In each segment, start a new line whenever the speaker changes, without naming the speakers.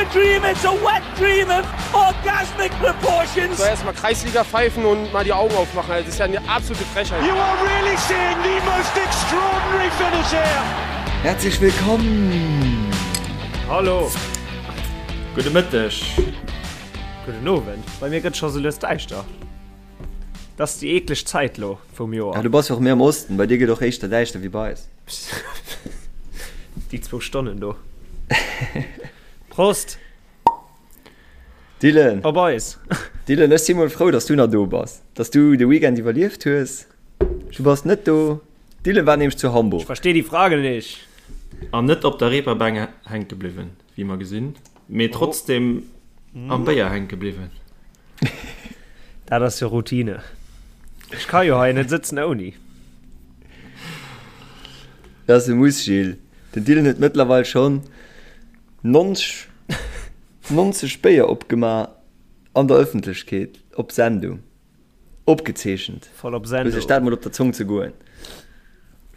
a dream, it's a wet dream of orgasmic proportions.
So erstmal Kreisliga pfeifen und mal die Augen aufmachen. Das ist ja eine absolute Frechheit.
You are really seeing the most extraordinary finish here.
Herzlich willkommen!
Hallo!
Gudde Mëtteg!
Gudden Owend! Bei mir gëtt scho sou lues däischter. Dat ass déi eekleg Zäit lo vum Joer.
Ja, du bass jo och méi am Osten, bei dir gëtt och éischter däischter wéi bei eis.
Déi zwou Stonnen do. Prost!
Dylan!
Op eis!
Dylan, ech si mol frou, dass du nach do bass, dass du de Weekend iwwerlieft hues. Du bass net do. Dylan war nämlech zu Hamburg.
Ich verstehe die Frage nicht.
An net op der Reeperbahn hänke bliwwen, wéi mer gesinn, mee trotzdem am Béier hänke bliwwen.
Dat ass jo Routine. Ech ka jo hei net sëtzen ouni.
Dat ass e Muss, Gilles. Den Dylan huet mëttlerweil schonn 90, 90 Béier opgemaach an der Ëffentlechkeet, op Sendung. Opgezeechent.
Voll op Sendung.
Looss iech dat mol op der Zong zegoen.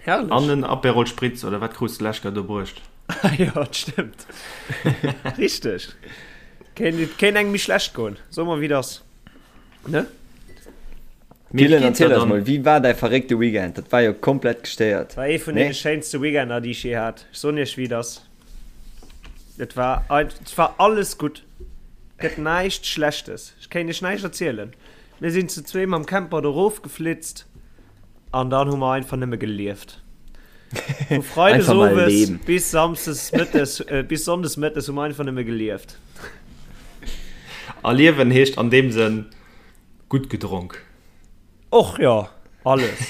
Herrlech.
An en Aperol Spritz, oder wat krus de lech grad do bruecht?
Ah jo, dat stëmmt. Richteg. Kéint, et kéint engem méi schlecht goen. So mer wéi et ass. Ne?
Mee wéi
Dylan,
geet dat
erziel eis
dann?
mol, wéi war däi verréckte Weekend? Dat war jo komplett gestéiert,
War ee vun
nee?
deene schéinste Weekender, déi ech jee hat. Ech soen iech wéi et ass. Et war, et war alles gutt. Gëtt näischt Schlechtes. Ech kéint iech näischt erzielen. Mir sinn zu zwee mam Camper do rofgeflitzt an dann hu mer einfach nëmme gelieft. Vu Freides
Einfach mal
owes
leben.
bis Samsdes mëttes, äh, bis Sonndes mëttes hu mer einfach nëmme gelieft.
A liewen heescht an deem Sënn gutt gedronk.
Och jo, alles.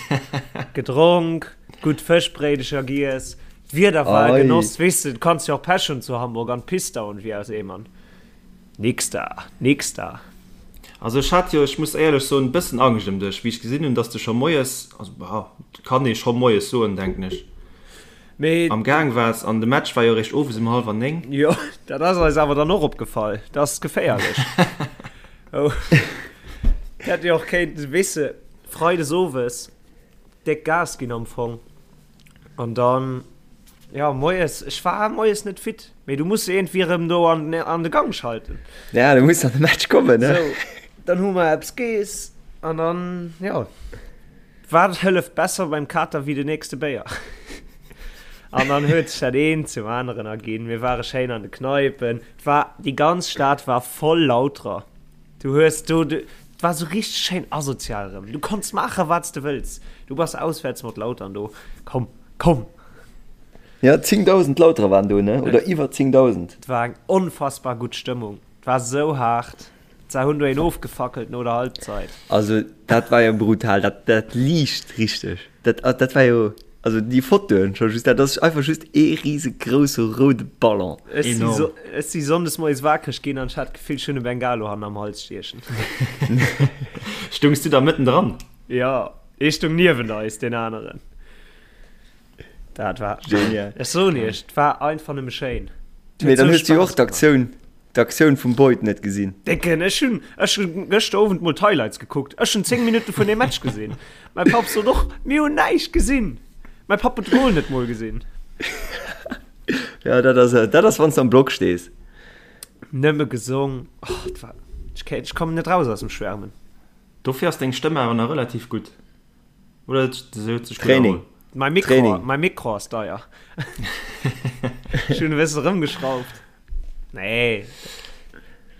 Gedronk, gutt Fëschbréidecher giess, d'Wieder war e
Ei.
Genoss. Weess de, du kanns jo och Pech hunn zu Hamburg an d'Pist dauern wéi aus Eemern. Nix da, nix da.
Also ech hat jo, ech muss éierlech soen, e bëssen Angscht ëm dech, wéi ech gesinn hunn, dass de scho moies, also bah, kann ee scho moies soen, denken ech,
Mee.
am Gaang waars an de Match war jo eréischt owes ëm hallwer 9.
Jo, dat ass eis awer dann och opgefall, dat ass geféierlech. Oh. Hätt jo och kéinten, weess de, freides owes déck Gas ginn am Fong an dann, jo, moies, ech war moies net fit, mee du muss iergendwéi erëm do an, an de Gang schalten.
Ja, du muss an de Match kommen, ne?
Sou, dann hu mer eppes geess an dann, jo, wat hëlleft besser beim Kater wéi de nächste Béier? An dann huet sech dat eent zum aneren erginn. Mir ware schéin an de Kneipen. Et war, déi ganz Stad war voll Lauterer. Du hues do, et war sou richteg schéin asozial erëm. Du konns maachen, wat s de wëlls. Du bass auswäerts mat Lautern do. Komm, komm!
Ja, 10.000 Lauterer waren do, ne? Oder iwwer 10.000.
Et war eng onfassbar gutt Stëmmung. Et war sou haart. Se hunn do een ofgefackelt no der Halbzeit.
Also dat war jo brutal, dat, dat liicht richteg. Dat, dat war jo, also déi Fotoen scho just, dat ass einfach just ee risegrousse roude Ballon.
Ech si
Enorm.
so, ech si sonndes moies wakereg ginn an ech hat d'Gefill, ech hunn e Bengalo hannen am Hals stiechen.
Stungs du da mëtten dran?
Jo, ee stung niewent eis, deen aneren. Dat war,
Genial.
ech soen iech, et war einfach nëmme schéin. Et
Mee
huet
dann
sou
hues du jo
Spaass
och
gemaach.
d'Aktioun, d'Aktioun vum Boyd net gesinn.
Décken, ech hunn, ech hunn gëschter Owend mol d'Highlights gekuckt. Ech hunn 10 Minutte vun deem Match gesinn. Mäi Papp sot och, mir hunn näischt gesinn. Mäi Papp huet de Goal net mol gesinn.
Ja, dat ass, dat ass wann s de am Block stees.
Nëmme gesong. Oh, et war, ech kéint, ech kommen net raus aus dem Schwärmen.
Dofir ass deng Stëmm awer nach relativ gutt. Oder se huet sech gutt
Training.
erholl.
Mäi Mikro,
Training.
mäi Mikro ass deier. Ech hunn e bësse rëmgeschrauft. Nee.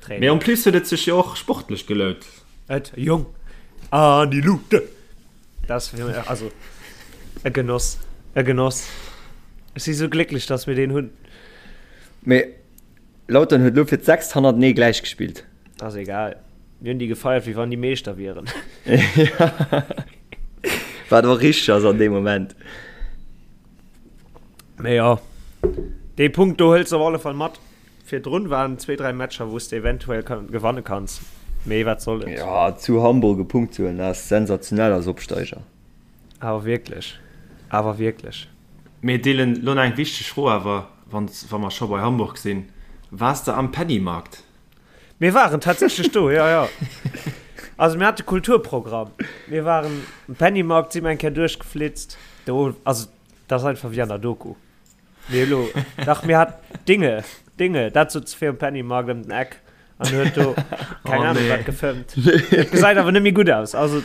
Training.
Mee en plus huet et sech jo och sportlech gelount.
Et, Jong. An die Lute. Dat ass fir mech, also, e Genoss. E Genoss. Ech si sou glécklech, dass mir deen hunn.
Mee Lautern huet elo fir d'sechst hannertenee gläich gespillt.
Ass egal. Mir hunn déi gefeiert, wéi wann déi Meeschter wieren.
Wat och richteg ass an deem Moment.
Mee jo, dee Punkt do hëls de op alle Fall mat. Virdrun waren zwee, dräi Matcher, wou s de eventuell gewanne kanns. Mee wat soll et.
Jo, zu Hamburg e Punkt ze huelen, dat ass sensationell als Opsteiger.
Awer wierklech, awer wierklech.
Mee Dylan, lo nach eng wichteg Fro awer, wann wa mer scho bei Hamburg sinn, Waars de am Pennymarkt?
Mir waren tatsächlech do, jo, jo. Also mir hate Kulturprogramm. Mir waren am Pennymarkt, si mer eng Kéier duerchgeflitzt. Do, also dat ass einfach wéi an der Doku. Mee elo, dach mir hat Dinge. Dinge, dat sot fir um Pennymarkt ëm den Eck an huet do keng oh, Ahnung nee. wat gefëmmt. Et gesäit awer net méi gutt aus, also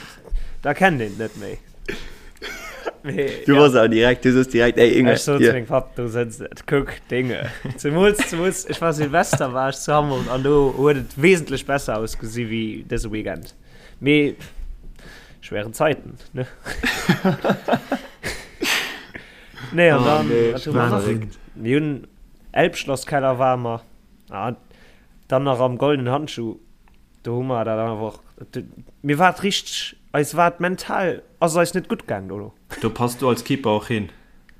da kennt een net méi.
Nee, du ja. warst auch direkt, du soos direkt, ey
Inge. Ech sot zu mengem Papp, do sëtzt et, kuck, Dinge. Zemools, zemools, ech war Silvester war ech zu Hamburg an do huet et wesentlech besser ausgesi wéi dëse Weekend. Mee schweren Zeiten, ne? Nee, an oh, dann, nee, wat hu mer nach? Mir hunn Elbschlosskeller ware mer. Ah, dann nach am Goldenen Handschuh. Do hu mer dat einfach. Mir war et richteg, eis war et mental, ass et eis net gutt gaang dono.
Do pass du als Keeper och hin.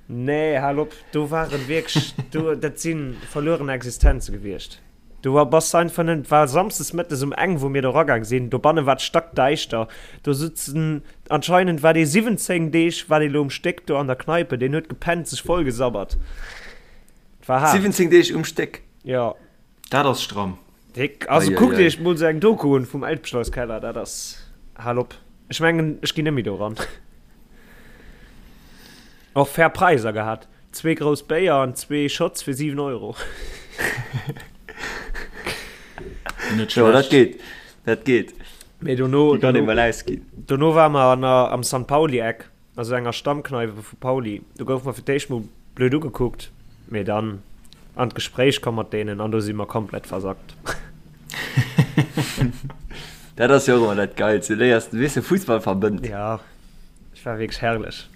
Nee, hal op, do waren wierklech, do, dat si verlueren Existenze gewiescht. Du bass einfach net, et war samsdes mëttes um eng, wou mir do ragaang sinn, dobanne war et stackdäischter, do sutzen, anscheinend war dee 17 Deeg war dee lo um Stéck do an der Kneipe, deen huet gepennt, sech vollgesabbert.
Et war haart. 17 Deeg um Stéck?
Jo.
Dat ass stramm.
Déck. Also kuckt iech mol sou eng Doku un vum Elbschlosskeller, dat ass, hal op. Ech mengen, ech ginn net méi do ran. Och fair Präiser gehat. Zwee grouss Béier an zwee Shots fir 7 Euro.
Net schlecht. Jo, dat geet. Dat geet.
Mee dono,
Déi kann ee mol ausginn.
Dono ware mer an der, am San Pauli-Eck, also enger Stammkneipe vu Pauli. Do goufe mer fir d'éischt mol blöd ugekuckt, mee dann an d'Gespréich komm mat deenen an do si mer komplett versackt.
Dat ass jo och ëmmer dat Geilst. Du léiers, weess de, Fussball verbënnt.
Ja. Et war wierklech herrlech.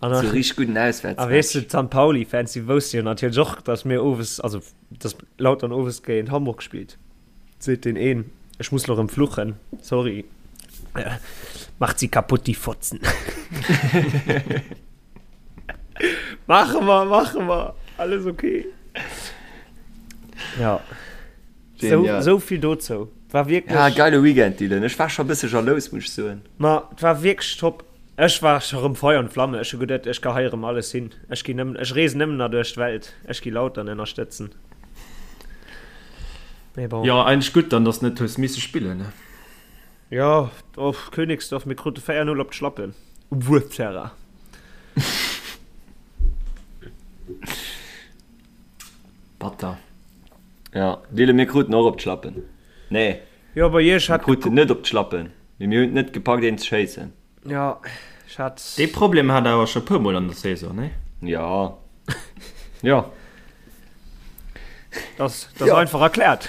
An so richtig guten Auswärtsmatch.
A weess du, d'San Pauli-Fans, déi wousste jo natierlech och, datt mir owes, also datt Lautern owes géint Hamburg spillt. Seet deen een, ech muss lo rëm fluchen, sorry. Macht sie kaputt, die Fotzen. Mache mer, mache mer, alles okay. Ja. Sou, sou vill dozou. War wierklech.
Ja, geile Weekend, Dylan. Ech war scho e bësse jalous, muss ech soen.
Ma et war wierklech top. Ech war scho rëm Feuer und Flamme. Ech hu geduet, ech geheie rëm alles hin. Ech ginn nëmmen, ech reesen nëmmen nach duerch d'Welt. Ech gi Lautern ënnerstëtzen.
Mee bon. Jo, eigentlech gutt dann, dass de net hues misse spillen, ne?
Jo, och Königsdorf, mir krute 4, 0 op d'Schlappen um Wuerterrain.
Batter.
Ja, Dylan, mir kruten och op d'Schlappen. Nee.
Jo, bei iech
hat. Mir kruten net op d'Schlappen, mee mir hunn et net gepackt, een ze schéissen.
Ja, ech hat.
Dee Problem hat der awer scho puer Mol an der Saison, nee?
Ja. Ja.
Das, das ja. einfach erklärt.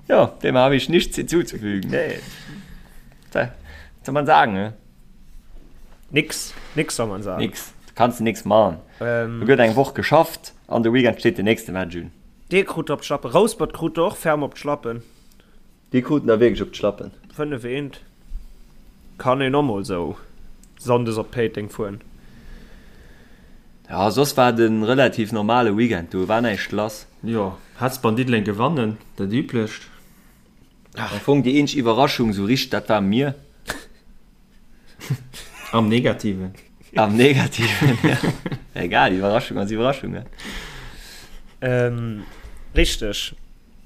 Ja, dem habe ich nichts hinzuzufügen. Nee. Was soll man sagen, ne?
Nix, nix soll man sagen.
Nix. Du kannst nix machen. Ähm, du gëtt eng Woch geschafft an de Weekend steet den nächste Match un.
Dir krut op d'Schlappen. Rouspert krut och ferm op d'Schlappen.
Déi kruten da wierklech op d'Schlappen.
5 eent. Kann een och mol sou Sonndes op Péiteng fueren.
Ja, soss war et e relativ normale Weekend, do war näischt lass.
Jo, Hesper an Diddeleng gewannen, dat üblecht.
Am Fong déi eenzeg Iwwerraschung sou richteg, dat ware mir.
Am Negativen.
Am Negativen, ja. Egal, Iwwerraschung ass Iwwerraschung, ne?
Ähm, richteg.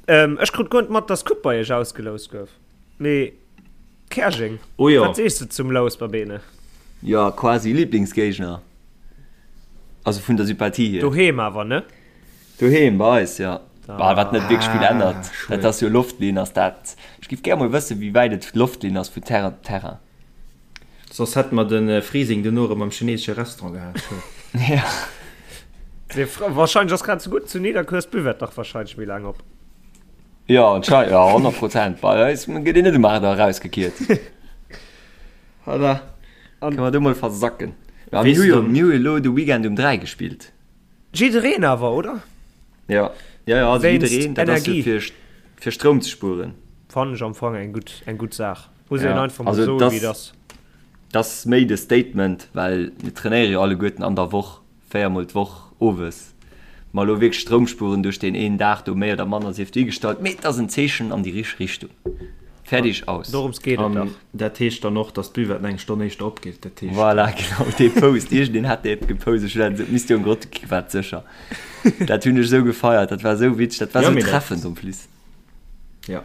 Ähm, ech krut guer net mat, dass d'Coupe bei iech ausgeloust gouf. Mee Käerjeng,
Oh jo.
wat sees de zum Lous, Babene?
Jo, quasi Lieblingsgéigner. Also vun der Sympathie hier.
Doheem awer, ne?
Doheem bei eis, jo. Bah, wat net wierklech vill ännert. Dat ass jo Loftlinn, ass dat. Ech giff gär mol wëssen, wéi wäit et Loftlinn ass vu Terrain op Terrain.
Soss hätte mer de Freezing duerno erëm am chinesesche Restaurant gehat.
Ja.
Wahrscheinlech ass grad sou gutt zu Nidderkuer ass d'Buvette dach wahrscheinlech méi laang op.
Jo, anscheinend, jo, 100 Prozent. Bei eis gëtt een net um 8 Auer erausgekiert. Voilà. Kënne mer do mol versacken. Mä mir hu jo, mir hu jo elo de Weekend um 3 gespillt.
Jiddereen awer, oder?
Ja, ja, ja, also jiddereen, dat ass jo fir, fir Stroum ze spueren.
Fannen ech am Fong eng gutt, eng gutt Saach. Muss een einfach mol soen, wéi et ass.
Dat ass méi de Statement, well mir trainéiere jo alleguerten an der Woch, véiermol d'Woch owes. Ma elo wierklech Stroum spueren duerch deen een Dag do méi oder manner sief duergestallt, mee et ass en Zeechen an déi richteg Richtung. Fertig, aus.
Dorëms geet et dach.
Dat heescht dann och, dass d'Buvette eng Stonn éischter opgeet. Dat heescht.
Voilà, genau, dee Post. Iergendeen hat dee gepost. Ech hunn dat esou, misst jo en Grott gi, war et sécher. Dat hunn ech esou gefeiert, dat war esou witzeg, dat war esou treffend en plus.
Ja,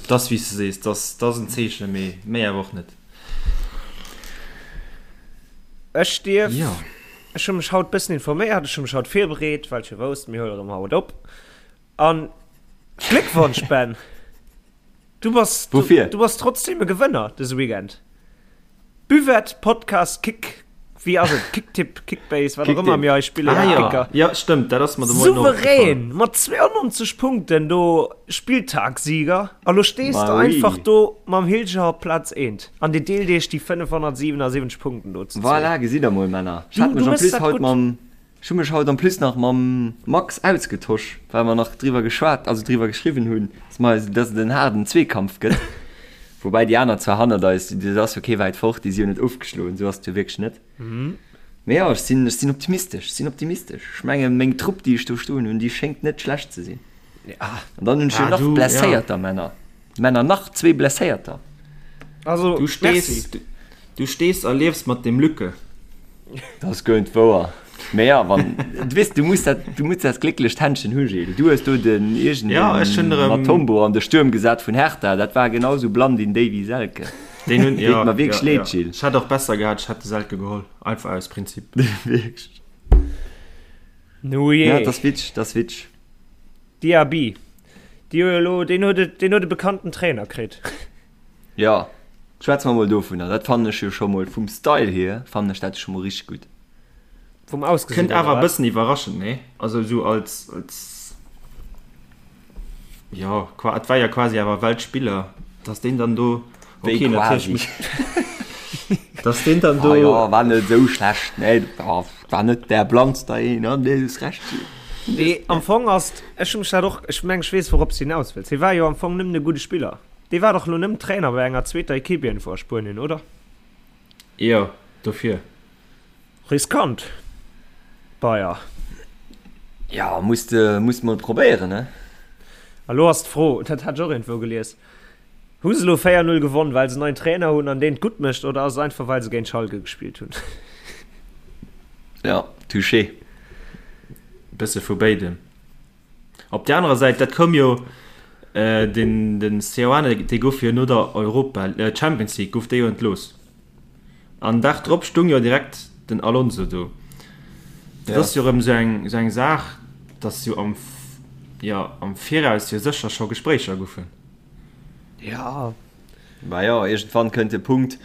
dat ass wéi s de sees, dat ass en Zeechen, mee méi awer och net.
Ech dierf
Jo.
Ech hu mech haut bëssen informéiert, ech hu mech haut virbereet, well ech jo wousst, mir huelen erëm haut op. An Gléckwonsch, Ben! Du bass, du,
Woufir?
du bass trotzdem e Gewënner dëse Weekend. Buvette, Podcast, Kick, wéi ass et? Kicktipp, Kickbase, wat och ëmmer mir hei spillen.
Ah, ja.
Kicker.
Ja, stëmmt, dat ass mer de Moien och
Souverän
opgefall.
mat 92 Punkten do Spilltagssieger. A lo stees
Ma
de
oui.
einfach do mam Hilger op Plaz eent. An dir deelt iech déi 577 Punkten do zu zwee.
Voilà, gesitt der mol, Männer. Ech
Du,
hat
du
mech en
mëss
plus
dat
haut
gutt.
mam, ech hu mech haut en plus nach mam Max ausgetosch, well mer nach driwwer geschwat, also driwwer geschriwwen hunn, dass mer eis, dass et en haarden Zweekampf gëtt. Woubäi déi aner zwar hannert eis, dat ass jo kee wäit fort, déi si jo net ofgeschloen, esou ass et jo wierklech net. Mee jo, ech sinn, ech sinn optimistesch, ech sinn optimistesch. Ech mengen, meng Trupp, déi ech do stoen hunn, déi schéngt net schlecht ze sinn. An dann hunn ech jo
Ah,
nach
du, ja.
Blesséierter, Männer. Männer, nach zwee Blesséierter.
Also,
Du stees,
merci.
du, du stees a liefs mat dem Lücke.
Dat ass guer net wouer. Mee ja, wann, du weess, du muss dat, du muss dat glécklecht Händchen hu, Gilles. Du hues do den iergend
Ja, ech hunn erëm-
Matombo an de Stuerm gesat vun Hertha. Dat war genau sou Blandin, Davy, Selke.
Deen hunn,
Deet
ja,
mer wierklech
ja,
leed,
ja.
Gilles.
Ech hätt och besser gehat, ech hätt de Selke geholl. Einfach aus Prinzip.
Wierklech.
Nu jee.
Ja, dat ass witzeg, dat ass witzeg.
Diaby, déi hu jo elo, deen huet et, deen huet e bekannten Trainer kritt.
Jo, schwätze mer mol dovunner. Dat fannen ech jo scho mol vum Style hier fannen ech dat scho mol richteg gutt.
Vum Ausgesinn,
Kënnt awer
oder
e
wat?
bëssen iwwerraschend, nee? Also esou als, als, jo, qua, et war jo quasi awer Weltspiller, dass deen dann do,
Wéi
okay, natierlech
quasi?
muss, dass deen dann
Ah
do,
jo, war net esou schlecht, nee, war net der blannster een, nee, du hues Recht.
Nee, am Fong ass, ech hu mech dat och, ech meng ech weess wourops de hinaus wëlls, hie war jo am Fong nëmmen e gudde Spiller. Dee war dach elo nëmmen Trainer bei enger zweeter Equipe iergendwou a Spuenien, oder?
Jo, dofir.
Riskant, Bayer.
Ja, muss de, muss de mol probéieren, ne?
A lo ass d'Fro, dat hat ech och iergendwou gelies, Hu se elo 4, 0 gewonn, well se en neien Trainer hunn an deen et gutt mécht, oder ass et einfach, well se géint Schalke gespillt hunn?
Ja, touché.
Bësse vu béidem. Op där anerer Säit, dat koum jo, den den Seoane, dee gouf jo no der Europa, Champions League gouf dee jo entlooss. An Dag drop stung jo direkt den Alonso do. Dat ass jo erëm esou eng esou eng Saach, datt jo am, jo am Viraus jo sécher scho Gespréicher goufen.
Ja.
Bah jo, iergendwann kënnt de Punkt,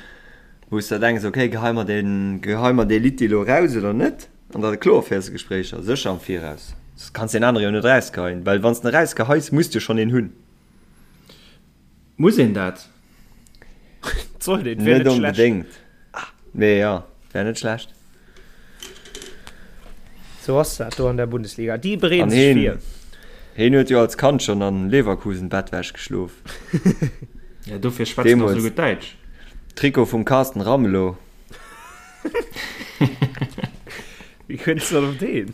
wou s de denks, okay, gehei mer deen, gehei mer dee Litti elo eraus oder net? An da kloer féiers de Gespréicher, sécher am Viraus. Soss kanns deen anere jo net erausgeheien, well wann s de en erausgeheis, muss de schonn een hunn.
Muss een dat?
Sollt een, wär
Net
net schlecht.
onbedéngt, mee jo, wär net schlecht.
Sou ass dat do an der Bundesliga. Déi bereeden
An
sech
heen,
vir.
heen huet jo als Kand schonn an Leverkusen Bettwäsch geschlof.
Ja, dofir schwätzt en och
Deemools.
sou gutt Däitsch.
Trikot vum Carsten Ramelow.
Wéi kënns du dann op deen?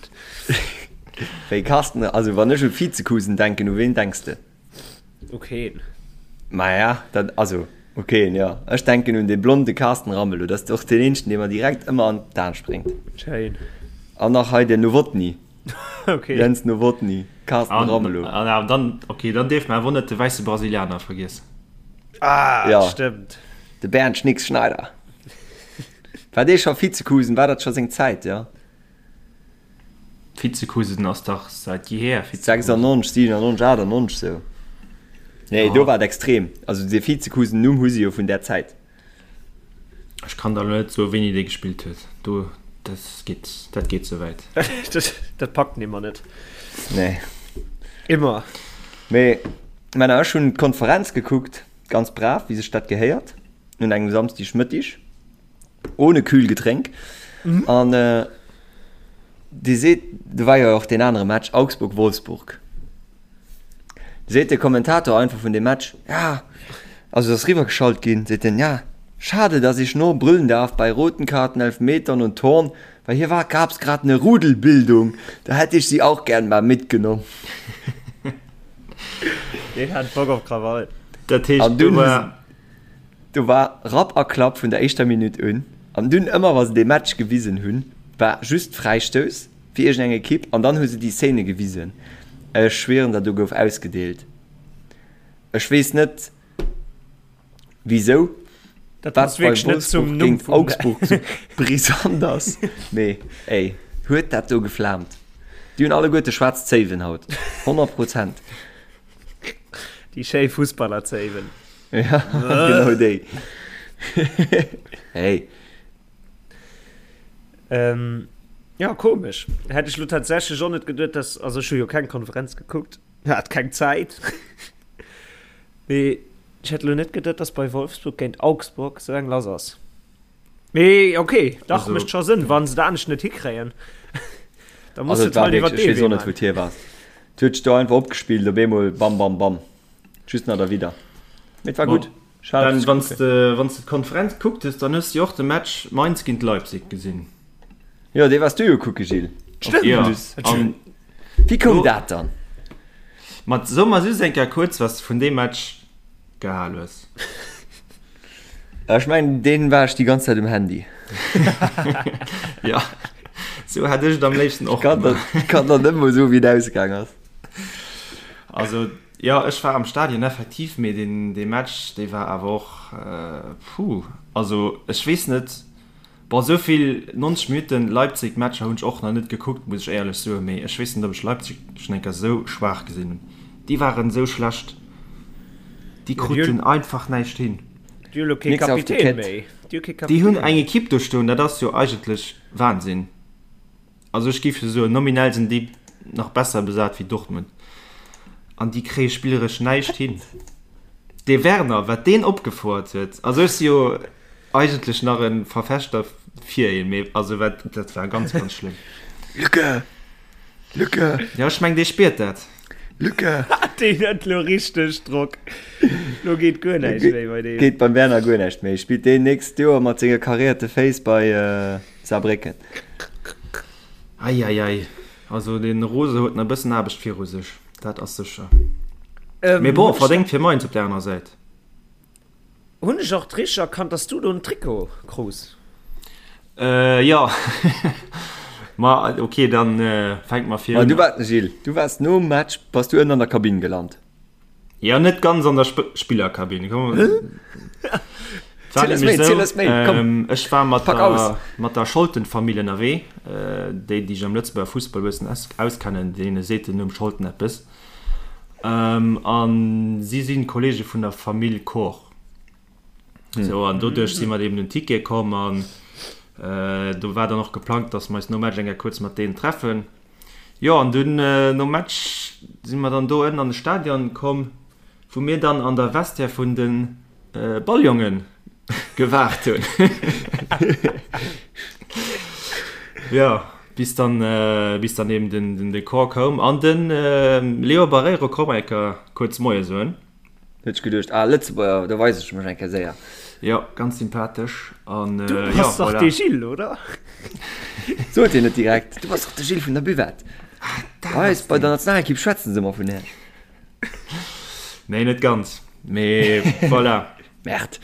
Wéi Carsten, also wann ech u Vizekusen denken, u ween denks de?
U keen.
Maja, dat, also u keen, jo. Ech denken un dee blonde Carsten Ramelow, dat ass och deen eenzegen, dee mer direkt ëmmer an d'An spréngt.
Schéin.
An nach hei den Nowotny.
Okay.
Jens Nowotny, Carsten
An,
Ramelow.
an, an dann, okay, dann dierf mer awer net de wäisse Brasilianer vergiessen.
Ah,
Ja.
stëmmt.
De Bernd Schnicks Schneider. War dee scho Vizekusen? War dat scho seng Zäit, jo?
Vizekusen ass dach säit jeher Vizekusen.
96, 97, 98 sou. Nee, do war et extrem. Also dee Vizekusen-Numm hu si jo vun där Zäit.
Ech kann der elo net soen, wéini dee gespillt huet. Do, dat geet, dat geet ze wäit.
Dat packt en immer net.
Nee.
Immer.
Mee, Männer, ech hunn d'Konferenz gekuckt, ganz brav, wéi sech dat gehéiert, un engem Samsdegmëttig. Ohne Kühlgetränk. Mhm. An äh, Dir seet, do war jo och deen anere Match, Augsburg-Wolfsburg. Seet de Kommentator einfach vun dem Match, ja, also ass riwwergeschalt ginn, seet en, ja, schade, dass ich nur brüllen darf bei roten Karten, Elfmetern und Toren, weil hier war, gab's grad eine Rudelbildung, da hätte ich sie auch gern mal mitgenommen.
Deen hat Bock op Krawall.
Dat heescht,
An dunn
do war.
Do war Rapp a Klapp vun der éischter Minutt un. An dunn, ëmmer wa se dee Match gewisen hunn, war just Fräistouss fir iergendeng Ekipp an dann hu se déi Szene gewisen. Ech schwieren der, do gouf ausgedeelt. Ech weess net wisou.
Dat passt wierklech net zum Numm
vum Augsburg sou brisant ass. Mee ey, huet dat do geflaamt. Déi hunn alleguerte schwaarz Zéiwen haut, 100 Prozent.
Déi schéi Fussballerzéiwen.
Ja, genau déi. Hey.
Ähm, ja, komesch. Hätt ech lo tatsächlech och net geduet, dass, also ech hu jo keng Konferenz gekuckt, hat keng Zäit. Mee ech hätt lo net geduet, dass bei Wolfsburg géint Augsburg sou eng lass ass. Mee okay, dach, mécht scho Sënn, wa se et anescht net hikréien.
Da muss et halt iwwer dee Wee maachen. Et huet sech do einfach opgespillt, op eemol bam bam bam, just nach derwidder. Mee et war gutt.
Ben, wann s de, wann s de d'Konferenz gekuckt hues, dann hues de jo och de Match Mainz géint Leipzig gesinn.
Jo, dee waars du jo kucke, Gilles.
Stimmt.
Jo, an
Wéi koum dat dann?
Ma so mer just eng Kéier kuerz, wat s de vun deem Match gehal hues.
Ech mengen, deen war ech déi ganz Zäit um Handy.
Jo, sou hätt ech et am léifsten och
gemaach. Ech kann der net mol soen, wéi et ausgaang ass.
Also, jo, ech war am Stadion effektiv, mee deen, dee Match, dee war awer och, puh, also ech weess net, Bon, esou vill 90 Minutten Leipzig Matcher hunn ech och nach net gekuckt, muss ech éierlech soen, mee ech weess net ob ech Leipzig schon eng Kéier esou schwaach gesinn hunn. Déi waren esou schlecht, déi kruten einfach näischt hin.
Déi hu lo kee Kapitän méi.
Déi hunn eng Equipe do stoen, dat ass jo eigentlech Wahnsinn. Also ech géif jo soen, nominell sinn déi nach besser besat wéi Dortmund an déi kréie spilleresch näischt hin. Dee Werner, wat deen opgefouert huet, also ech si jo eigentlech nach e Verfechter fir een, mee also wat, dat war ganz, ganz schlëmm.
Lücke! Lücke!
Jo, ech meng, dee spiert dat.
Lücke!
Deen huet lo richteg Drock. Lo geet guer näischt méi bei deem.
Geet beim Werner guer näischt méi. Spillt deen nächst Joer mat senge karéierte Féiss bei Saarbrécken.
Eieiei, also den Rose huet nach e bëssen Aarbecht viru sech, dat ass sécher. Mee bon, verdéngt fir Mainz op der anerer Säit.
Hunn ech och richteg erkannt, dass du do en Trikot krus?
Jo, ma ok, dann fänke mer vir
un. Du waars, Gilles, du waars nom Match, bass du ënnen an der Kabinn gelant.
Jo, net ganz an der Spillerkabinn. Ech war mat der, mat der Scholten-Famill ënnerwee. Déi, déi sech am Lëtzebuerger Fussball e bëssen auskennen, deene seet den Numm Scholten eppes. A si si Kolleege vun der Famill Koch. Sou, an doduerch si mer eben un Ticket komm an do war dann och geplangt, dass mer eis nom Match eng Kéier kuerz mat deenen treffen. Jo, an dunn nom Match si mer dann do ënnen an de Stadion komm, wou mir dann an der Vestiaire vun de Balljonge gewaart hunn. Jo, bis dann, bis dann eben den, den Corps koum an de Leo Barreiro koum eng Kéier kuerz Moie soen.
Huet sech geduecht, ah Lëtzebuerger, do weis ech mech eng Kéier séier.
Jo, ganz sympathesch an
Du bass dach de Gilles, oder?
Sot hien net direkt, du bass dach de Gilles vun der Buvette. Bei eis bei der Nationalekipp schwätzen se ëmmer vun Iech.
Nee, net ganz, mee voilà.
Merde.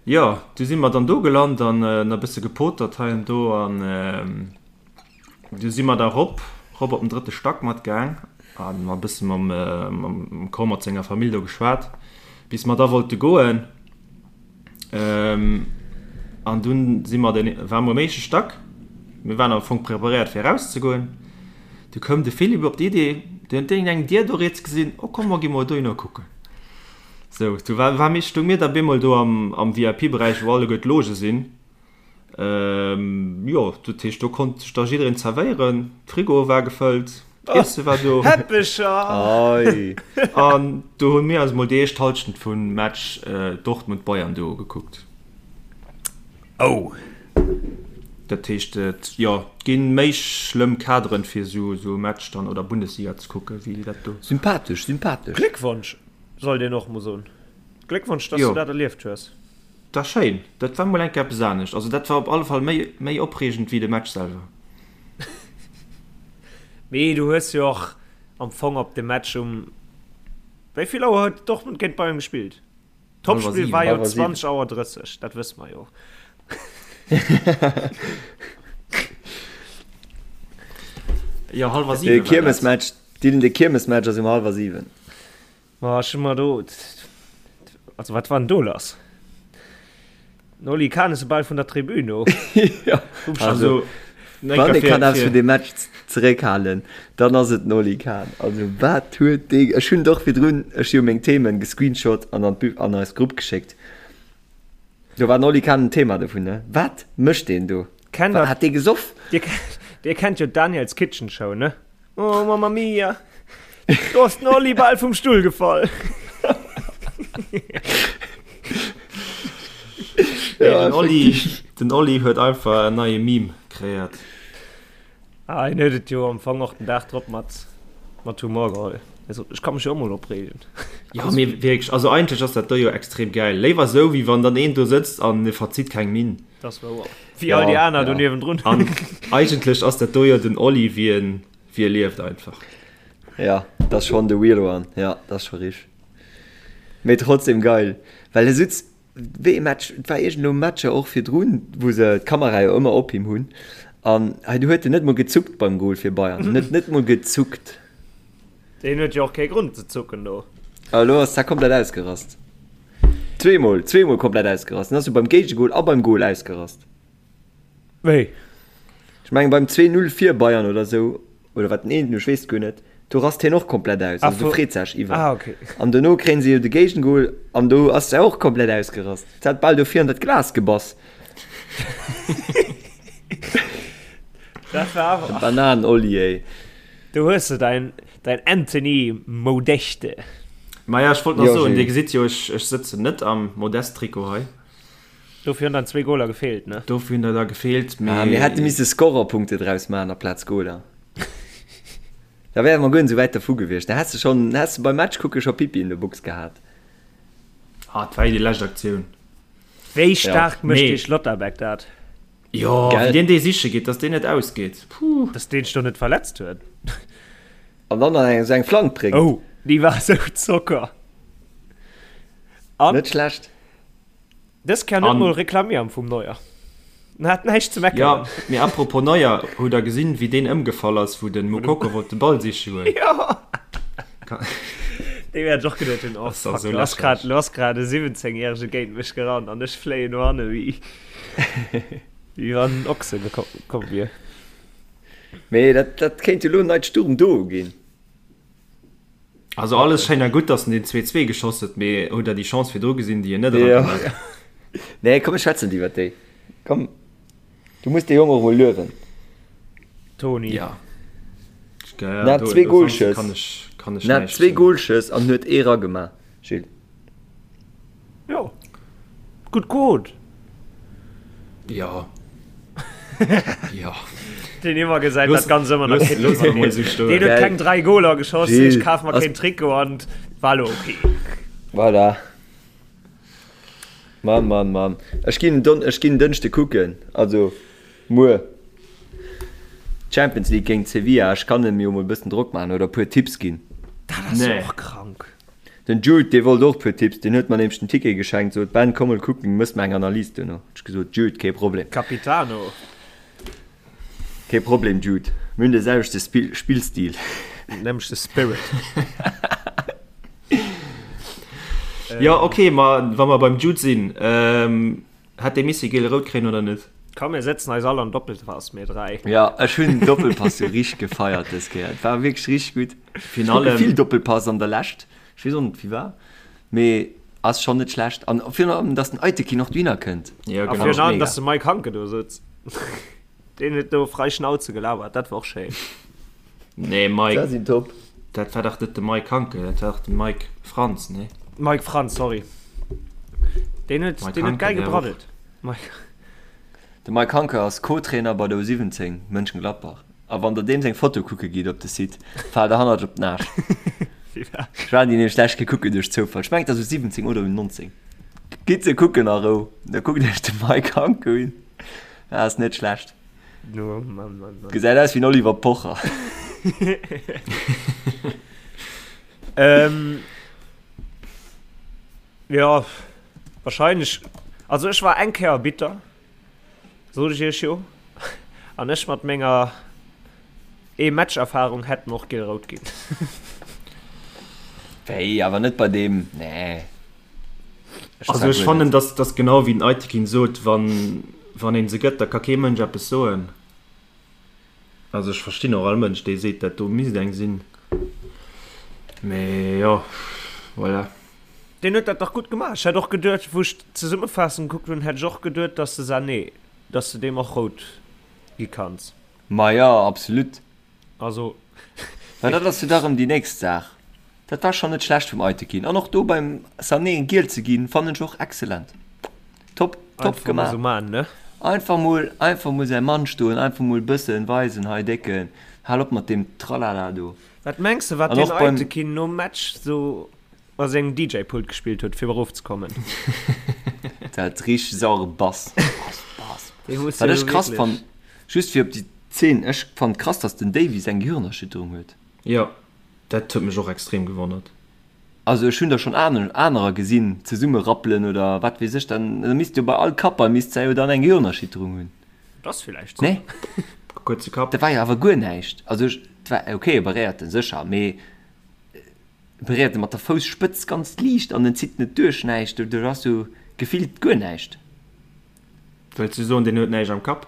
Jo, du si mer dann do gelant an nach e bësse gepotert hei an do an. Du si mer da rop, rop op den drëtte Stack mat gaang an mer e bësse mam, mam Cor mat senger Famill do geschwat, bis mer da wollte goen. An dunn si mer den, ware mer um éischte Stack, mir waren am Fong preparéiert fir erauszegoen. Du koum de Philippe op d'Idee, deen huet iergendeng Dier do riets gesinn, oh komm mer gi mol dohinner kucken. Sou, du war, war mir, stoung mir da bemol do am, am VIP-Beräich, wou alleguer d'Loge sinn. Jo, dat heescht, do konnt sech da jiddereen zerwéieren. D'Frigoe war gefëllt, d'Iesse war do.
Häppecher!
Ei!
An do hu mir eis mol déi éischt Hallschent vum Match Dortmund-Bayern do ugekuckt.
Oh!
Dat heescht, jo, et gi méi schlëmm Kaderen, fir esou e Match dann oder Bundesliga ze kucke wéi dat do.
Sympathesch, sympathesch!
Gléckwonsch, sollt een och mol soen. Gléckwonsch, dass du dat erlieft hues.
Dat war schéin, dat war mol eng Kéier eppes anescht. Also dat war op alle Fall méi méi opreegend wéi de Match selwer.
Mee du hues jo och am Fong op de Match um, wéi vill Auer huet Dortmund géint Bayern gespillt? Topspill war jo 20 Auer 30, dat wësse mer jo.
Jo, hallwer 7 war dat.
De Kiermesmatch, Dylan, de Kiermesmatch ass um hallwer 7.
Ma ech hu mer do, also wat war denn do lass? Den Oli Kahn ass bal vun der Tribün of.
Ja, also, wann ee kann eppes vun deem Match zeréckhalen, dann ass et den Oli Kahn. Also wat huet dee, ech hunn et och virdrun, ech hu jo meng Themen gescreenshot an an d'Bü, an eis Grupp geschéckt. Do war den Oli Kahn en Thema dovun, ne? Wat mécht deen do?
Kennt der,
Hat dee gesoff?
Dir, dir kennt jo d'Daniel's Kitchen Show, ne? Oh, Mamma Mia! Do ass den Oli bal vum Stull gefall.
Ja, den Oli, den Oli huet einfach en neie Meme kreéiert.
Ah, en huet et jo am Fong och den Dag drop mat, mat Humor geholl. Er sot, ech ka mech jo och mol opreegen.
Ja, mee wierklech, also eigentlech ass dat do jo extrem geil. Léiwer esou, wéi wann dann een do sëtzt an e verzitt keng Minn.
Das war wouer. Wéi all déi aner do niewendrun.
An eigentlech ass dat do jo den Oli, wéi en, wéi e lieft einfach.
Ja, dat ass schonn de real one. Ja, dat ass scho richteg. Mee trotzdem geil, well e sutz wéi e Match, et war iergendelo Matcher och virdrun, wou se d'Kamera jo ëmmer op him hunn an hei do huet en net mol gezuckt beim Goal fir Bayern, en huet net mol gezuckt.
Deen huet jo och kee Grond ze zucken do.
A elo ass dat komplett ausgerast. Zweemol, zweemol komplett ausgerast. En ass jo beim Géigegol a beim Goal ausgerast.
Wéi?
Ech mengen beim 2, 0 fir Bayern oder sou, oder wat den eenten, ech weess et guer net, do rast hien och komplett aus, also do freet sech iwwer.
Ah, okay.
An dono kréien se jo de Géigengol an do ass se och komplett ausgerast. Se hat bal do vir an dat Glas gebass.
Dat war awer.
De Bananen-Olli, ey.
Do hues de däin, däin Anthony Modeste.
Maja, ech wollt nach soen, Dir gesitt jo, ech, ech sëtzen net am Modeste-Trikot hei.
Dofir hunn dann zwee Goler gefeelt, ne?
Dofir hunn der da gefeelt,
mee. Ah, mir hätte misse Scorerpunkte draus maachen aplaz Goler. Da wäre mer guer net esou wäit dervu gewiescht. Da häss de schonn, häss de beim Match kucke scho Pipi in der Box gehat.
Ah, et war jo déi lescht Aktioun.
Wéi staark mécht dee Schlotterbeck dat?
Jo, wéi deen dee siche geet, dass deen net ausgeet.
Puh. Dass deen sech do net verletzt huet.
An dann nach eng esou eng Flank bréngt.
Oh, déi war esou Zocker.
An. Net schlecht.
Dës Kéier net mol reklamieren vum Neuer. En hat näischt ze meckeren.
Jo, mee apropos Neuer, hutt der gesinn, wéi deen ëmgefall ass, wou den Moukoko wollt de Ball siche goen?
Jo! Dee wäert ech och geduet hunn, oh fuck, lo ass grad, lo ass grad e 17 järege géint mech gerannt an ech fléien no hanne wéi, wéi wann en Ochse gekomm wier.
Mee dat, dat kéint jo elo en neit Sturm-Duo ginn.
Also alles schéin a gutt, dass en den 2-2 geschoss huet, mee hutt der déi Chance virdru gesinn, déi en net
eragemaach huet? Nee, komm mir schwätzen net iwwert déi. Komm, du muss dee Jong och emol luewen.
Toni.
Ja.
En hat zwee Golschëss. En hat zwee Golschëss an huet ee ragemaach, Gilles.
Jo, gutt Quote.
Jo. Jo.
Deen ëmmer gesäit dat ganz ëmmer nach keen. Looss emol esou stoen. Deen huet keng 3 Goler geschoss, ech kaf mer keen Trikot an war lo ok.
Voilà. Mann, Mann, Mann. Ech ginn Don, ech ginn Dënschde kucken, also muer Champions League géint Sevilla. Ech kann em jo mol e bëssen Drock maachen oder e puer Tipps ginn.
Dat ass jo och krank.
Den Jude, dee wollt och puer Tipps, deen huet mer nämlech den Ticket geschenkt, sot, Ben, komm mol kucken, mëss mer eng Analys duerno. Hunn ech gesot, Jude, kee Problem.
Capitano.
Kee Problem, Jude, mir hunn de selwechte Spillstil.
Nämlechte Spirit.
Jo, ok, ma wa mer beim Jude sinn, Hätt dee misse giel-rout kréien oder net?
Komm mir sëtzen eis all an Doppelpass, mir 3.
Jo, ech hunn den Doppelpass jo richteg gefeiert dës Kéier. Et war wierklech richteg gutt. Ech kucke vill Doppelpass an der Lescht. Ech weess och net firwat, mee ass schonn net schlecht. An virun allem, dass den Aytekin och dohinner kënnt.
Jo, genau. A virun allem, dass de Mike Hanke do sëtzt. Deen huet do frei Schnauze gelabert, dat war och schéin.
Nee, Mike. Dat sinn top. Dat war dach net de Mike Hanke, dat war dach de Mike Frantz, nee?
Mike Frantz, sorry. Deen huet, deen huet geil gebraddelt. Mike.
De Mike Hanke ass Co-Trainer bei der U17 Mönchengladbach. A wann der deem seng Foto kucke gitt op de Site, faalt der hannert op den Aarsch. Ech war déi nämlech d'lescht Kéier kucken duerch Zoufall. Ech mengen et ass U17 oder U19. Gitt se kucken a Rou. Da kuckt iech de Mike Hanke un. Dat ass net schlecht.
No, Mann, Mann, Mann.
Gesäit aus wéi en Oliver Pocher.
ähm, ja, wahrscheinlech. Also ech war eng Kéier bitter, sot ech iech jo. An ech mat menger ee Match-Erfahrung hätt mer och giel-rout ginn.
Wéi, awer net bei deem, nee.
Also ech fannen, dass dass genau wéi den Aytekin sot, wann wann een se gëtt, da ka kee Mënsch eppes soen. Also ech verstinn och all Mënsch, dee seet, dat do misst eng sinn. Mee jo, voilà.
Deen huet dat dach gutt gemaach. Ech hätt och geduet, wou ech d'Zesummefaassung gekuckt hunn, hätt ech och geduet, dass de Sané, dass de deem och rout gi kanns.
Ma jo, absolut.
Also.
Mä dat ass jo da rëm déi nächst Saach. Dat war schonn net schlecht vum Aytekin. An och do beim Sané eng giel ze ginn, fannen ech och excellent. Top, top gemaach. Einfach mol, einfach mol säi Mann stoen, einfach mol bëssen weisen, hei Décken, hal op mat deem Tralala do.
Wat mengs de, wat deen Aytekin nom Match sou a sengem DJ-Pult gespillt huet, fir erofzekommen?
Dat richteg sauere Bass. Bass, Bass. Wat ech krass fannen, just fir op déi Zeen, ech fannen krass, dass den Davies eng Gehirnerschütterung huet.
Jo, dat huet mech och extrem gewonnert.
Also ech hunn der schonn anerer gesinn zesumme rappelen oder wat weess ech, dann da misst jo bei all Kappball misst se jo dann eng Gehirnerschütterung hunn.
Dat ass villäicht sou.
Nee?
Kuerze Kapp.
Dat war jo awer guer näischt. Also ech, et war ok, e beréiert en sécher, mee e beréiert e mat der Fousspëtz ganz liicht an en zitt net duerch näischt, do do ass jo gefillt guer näischt.
Wëlls du soen, deen huet näischt am Kapp?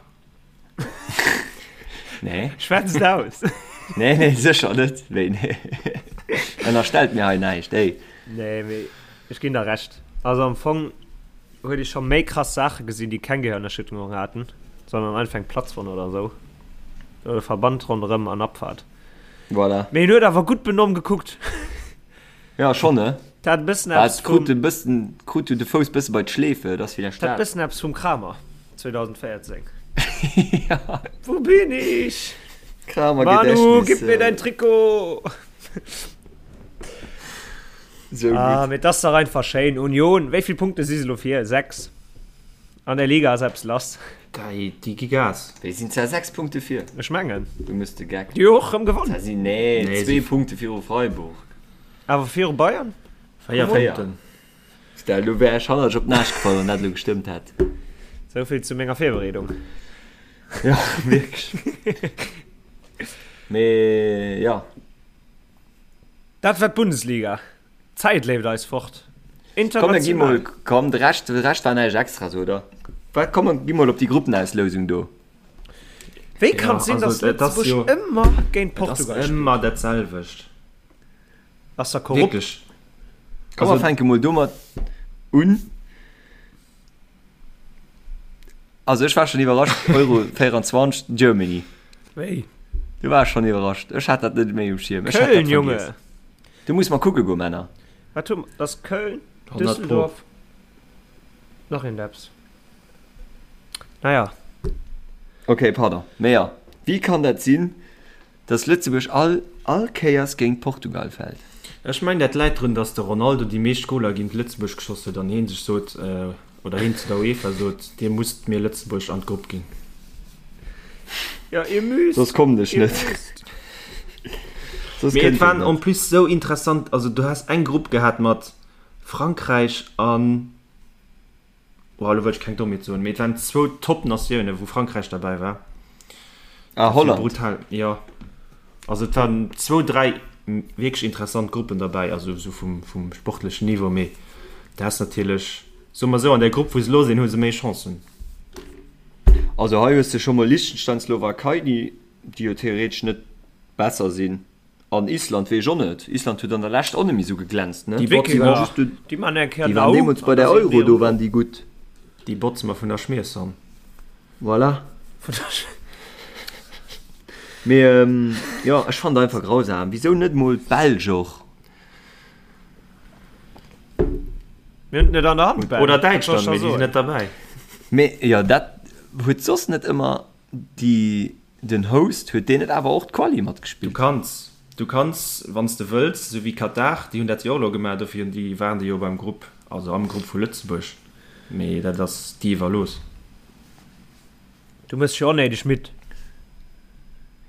Nee.
Schwätz et aus.
Nee, nee, sécher net. Wéi, nee. Ënnerstellt mir hei näischt, ey.
Nee, mee ech ginn der Recht. Also am Fong huet ee scho méi krass Saache gesinn, déi keng Gehirnerschütterung haten, sondern einfach eng Platzwonn oder esou. Oder Verband ronderëm an Abfahrt.
Voilà.
Mee en huet awer gutt benomm gekuckt.
Ja, schon, ne?
Dat hat e bëssen eppes
vum. Krut e bëssen, krut du de Fouss bësse bei d'Schleefe, dat ass villäicht
dat. Dat bëssen eppes vum Kramer 2014. Ja. Wo bin ich?
Kramer Gedächtnis.
Manu, gib mir dein Trikot!
Sou gutt.
Ah, mee 't ass dach einfach schéin. Union, wéi vill Punkte si se elo vir? 6. An der Liga ass eppes lass.
Déi, déi gi Gas.
Wéi sinn zwar 6 Punkte vir?
Ech mengen.
Du mëss de Geck.
Déi hu och rëm gewonnen.
Zwar sinn, nee,
Nee,
zwee
si.
Punkte viru Freiburg.
Awer viru Bayern?
4
4.
Punkten.
Stell, elo wär ech hannerlech op d'Naascht gefall, wann dat elo gestëmmt hätt.
Sou vill zu menger Virbereedung.
Ja, wierklech. Mee ja.
Dat war d'Bundesliga. D'Zäit leeft eis fort.
Komm, mir gi mol,
International.
komm, de Rescht, de Rescht war näischt Extras, oder? Wat, komm, mir gi mol op déi Gruppenauslousung do.
Wéi kann et sinn,
also,
dass
et ass
Lëtzebuerg
jo-
ëmmer géint
Et ass
Portugal spillt?
ëmmer dat selwecht.
Ass da korrupt?
Wierklech.
Komm, mer
Also-
fänke mol domat un. Also ech war schon iwwerrascht, Euro 24, Germany.
Wéi?
Du war schon iwwerrascht. Ech hat dat net méi um Schierm. Ech hat dat
Köln, Junge!
vergiess. Du muss mal kucke go, Männer.
Wat hu mer? Dat ass Köln,
100 Pro.
Düsseldorf, nach een Depps. Naja.
Okay, pardon. Mee ja, wéi kann dat sinn, dass Lëtzebuerg all all Kéiers géint Portugal fält?
Ech mengen dat läit drun, dass de Ronaldo déi meescht Goler géint Lëtzebuerg geschoss huet an heen sech sot, oder heen zu der UEFA sot, dir musst mir Lëtzebuerg an d'Grupp ginn.
Ja, ihr müsst.
Soss kommen ech
Ihr
net.
müsst.
Soss
Mee et
kënnt
waren
en
en
net.
plus sou interessant, also du has eng Grupp gehat mat Frankräich an, oh elo wëll ech keng Dommheet soen, mee et waren zwou Top-Natiounen, wou Frankräich derbäi war.
Ah, Holland.
Brutal, jo. Also et waren zwou, dräi wierklech interessant Gruppen derbäi, also esou vum, vum sportlechen Niveau, mee du has natierlech, soe mer esou, an där Grupp wou se elo sinn, hu se méi Chancen.
Also hei hues de scho mol Liechtenstein, Slowakei, déi déi jo theoretesch net besser sinn. An Island weess ech och net. Island huet an der Lescht och net méi esou geglänzt, ne?
Déi botze
waren
mer,
just do,
Déi man eng Kéier
déi waren
Dau
deemools bei
an
der
da sinn
Euro,
déi
do
erëm
waren
do.
déi gutt.
Déi botze mer vun der Schmiershonn.
Voilà.
Vun der Sch.
Mee jo, ech fannen et einfach grausam. Wisou net mol d'Belsch och?
Mir hunn et net an der Hand, Ben.
Oder
Wat soll ech
Däitschland,
da
mee déi sinn
soen?
net derbäi.
Mee jo, dat huet soss net ëmmer déi, den Host, huet deen net awer och d'Quali
Du
matgespillt?
kanns, du kanns, wann s de wëlls, esou wéi Katar, déi hunn dat jo och elo gemaach, dofir hunn déi, waren déi jo beim Grupp, also am Grupp vu Lëtzebuerg, mee dat ass dir iwwerlooss.
Du mëss jo onnéideg midd.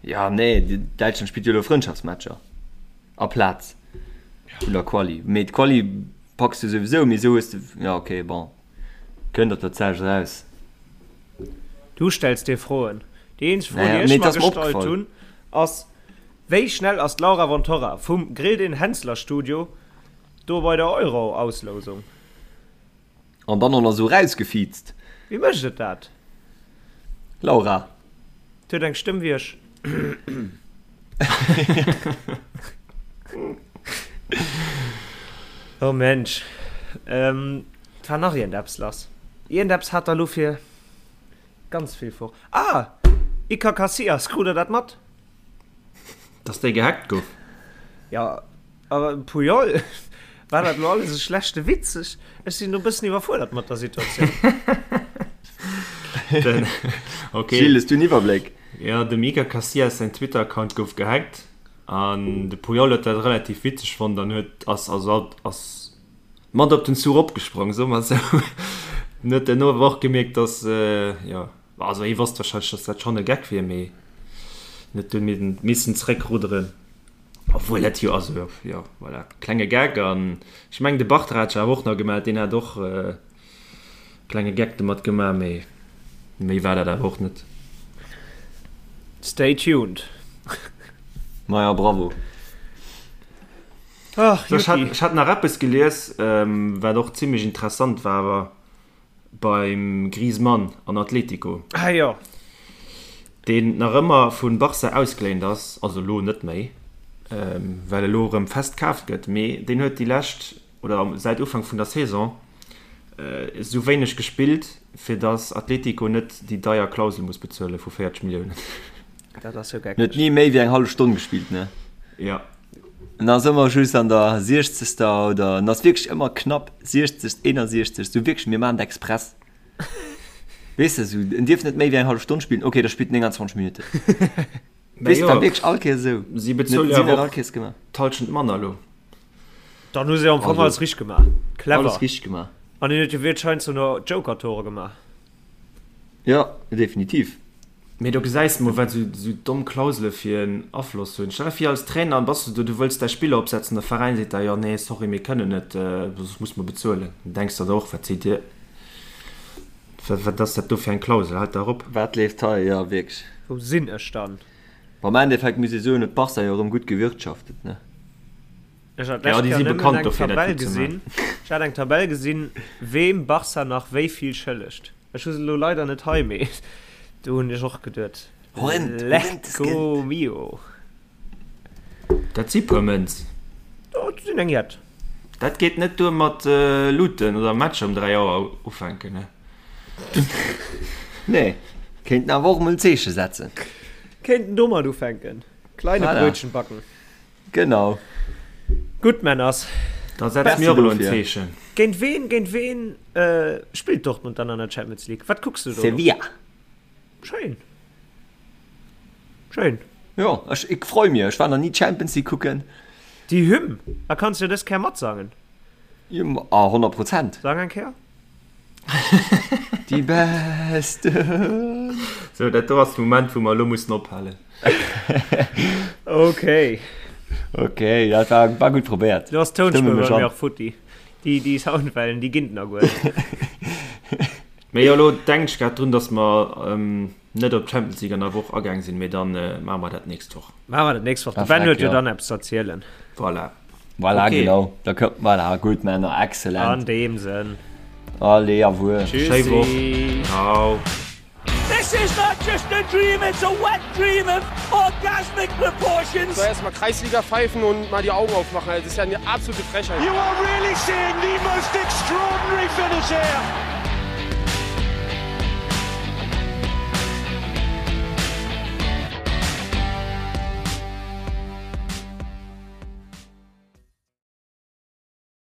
Ja, nee, Däitschland spillt jo elo Frëndschaftsmatcher aplaz vun der Quali. Mee d'Quali packs du souwisou, mee esou hues de, ja ok, bon, kënnt op dat selwecht eraus.
Du stells dir Froen. Déi eenzeg Fro,
Naja,
déi
mee
ech
et
mer
ass mer
gestallt
opgefall.
hunn, ass, Wéi schnell ass d'Laura von Torra vum Grill den Henssler Studio do bei der Euro-Auslousung?
An dann och nach esou rausgefiizt.
Wéi mécht et dat?
Laura.
Et huet eng Stëmm wéi ech. Oh Mensch. Et war nach iergendeppes lass. Iergendeppes hat der elo fir ganz vill for. Ah! Iker Casillas, krut der dat mat?
Dass dee gehackt gouf?
Jo, awer Puyol, war dat elo alles e schlechte Witz? Ech, ech sinn do e bëssen iwwerfuerdert mat der Situatioun.
Den, okay.
Gilles, hues du en Iwwerbléck?
Jo, dem Iker Casillas säin Twitter-Account gouf gehackt an de Puyol huet dat relativ witzeg fonnt an huet, ass, also ass mat op den Zuch opgesprong, soe mer esou. En huet duerno awer och gemierkt, dass, jo, Also hie wosst wahrscheinlech, dass dat schonn e Geck wier, mee en huet dunn missen zeréckrudderen. Obwuel dat jo, also jo, voilà, klenge Geck. An ech mengen de Bartra hat sech awer och nach gemellt, deen hat och e klenge Geck domat gemaach, mee méi war dat awer och net.
Stay tuned.
Maja, bravo.
Ach,
Ech hat,
Juti.
ech hat nach eppes gelies, wat och zimmlech interessant war, awer Beim Griezmann an Atletico.
Ah jo.
Deen nach ëmmer vu Barça ausgeléint ass, also elo net méi, well elo erëm fest kaaft gëtt, mee deen huet déi lescht, oder säit Ufank vun der Saison, esou wéineg gespillt, fir datt Atletico net déi deier Klausel muss bezuele vu 40 Milliounen.
Dat ass jo
En huet
geckeg.
ni méi wéi eng hallef Stonn gespillt, ne?
Jo.
En ass ëmmer just an der siechzegster oder en ass wierklech ëmmer knapp 60., 61., sou wierklech mir maachen et express. Weess de, sou en dierf net méi wéi eng hallef Stonn spillen, ok da spillt en 29 Minutten.
Mä
Weess de,
jo,
war wierklech all Kéiers esou.
si
En huet
bezuele jo
sinn dat
awer
all
och
Kéiers gemaach.
d'Hallschent manner elo.
Dann hu se am Fong
Also,
alles richteg gemaach. Clever.
alles richteg gemaach.
An hien huet jo wierklech heiansdo nach Joker-Tore gemaach.
Jo, definitiv.
Mee do gesäis de mol, wat esou domm Klausele fir en Afloss hunn. Stell der vir, als Trainer bass du do, du wëlls däi Spiller opsetzen, de Veräin seet der, jo nee, sorry, mir kënnen net, soss muss mer bezuelen. Dann denks der der och, wat seet dir, wat ass dat do fir eng Klausel, haalt dach op.
Wat leeft hei? Jo, wierklech.
Wou sinn ech dann?
Bon, am Endeffekt muss ee soen, huet Barca jo erëm gutt gewirtschaftet, ne?
Ech hat
Ja,
d'lescht
déi
Kéier
si
nëmmen
bekannt
eng
dofir, dat
Tabell
gutt ze
gesinn.
maachen.
Ech hat eng Tabell gesinn, weem Barca nach wéi vill schëllegt. Ech hu se elo leider net hei, mee do hunn ech och geduet,
Horrend, horrendes
Lecco
Geld.
mio.
Dat si puer Mënz.
Dat sinn eng jett.
Dat geet net duer mat Luuten oder Matcher um 3 Auer ufänken, ne?
Nee, kéinten awer och emol en Zeeche setzen.
Kéinten domat ufänken. Kleine
Voilà.
Brötchen backen.
Genau.
Gutt, Männers.
Da setze mir och elo en Zeechen.
Géint ween, géint ween spillt Dortmund dann an der Champions League? Wat kucks du do elo?
Sevilla.
Schéin. Schéin.
Jo, ech, ik freu mir. Ech war nach ni Champions League kucken.
Déi Hymn, a kanns jo dës Kéier matsangen.
Jo, a 100 Prozent.
Sang eng Kéier.
Die Besten.
Sou, dat do ass de Moment, wou mer elo mussen ophalen.
Okay.
Okay, dat war, war gutt probéiert.
Do ass d'Tounspuer bei mir och futti. Déi, déi Soundwellen, déi ginn nach guer net.
Mee jo, elo denken ech grad drun, dass mer net op d'Champions League an der Woch agaang sinn, mee dann maache mer dat d'nächst Woch.
Maache mer dat d'nächst Woch. De Ben huet jo dann eppes ze erzielen.
Voilà.
Voilà,
okay.
genau. Da kommt, voilà, gut, Männer, excellent.
An dem Sënn.
Allez, au revoir.
Tschüssi. Woch. Ciao.
This is not just a dream, it's a wet dream of orgasmic proportions.
So erstmal Kreisliga pfeifen und mal die Augen aufmachen. Das ist ja eine absolute Frechheit.
You are really seeing the most extraordinary finish here.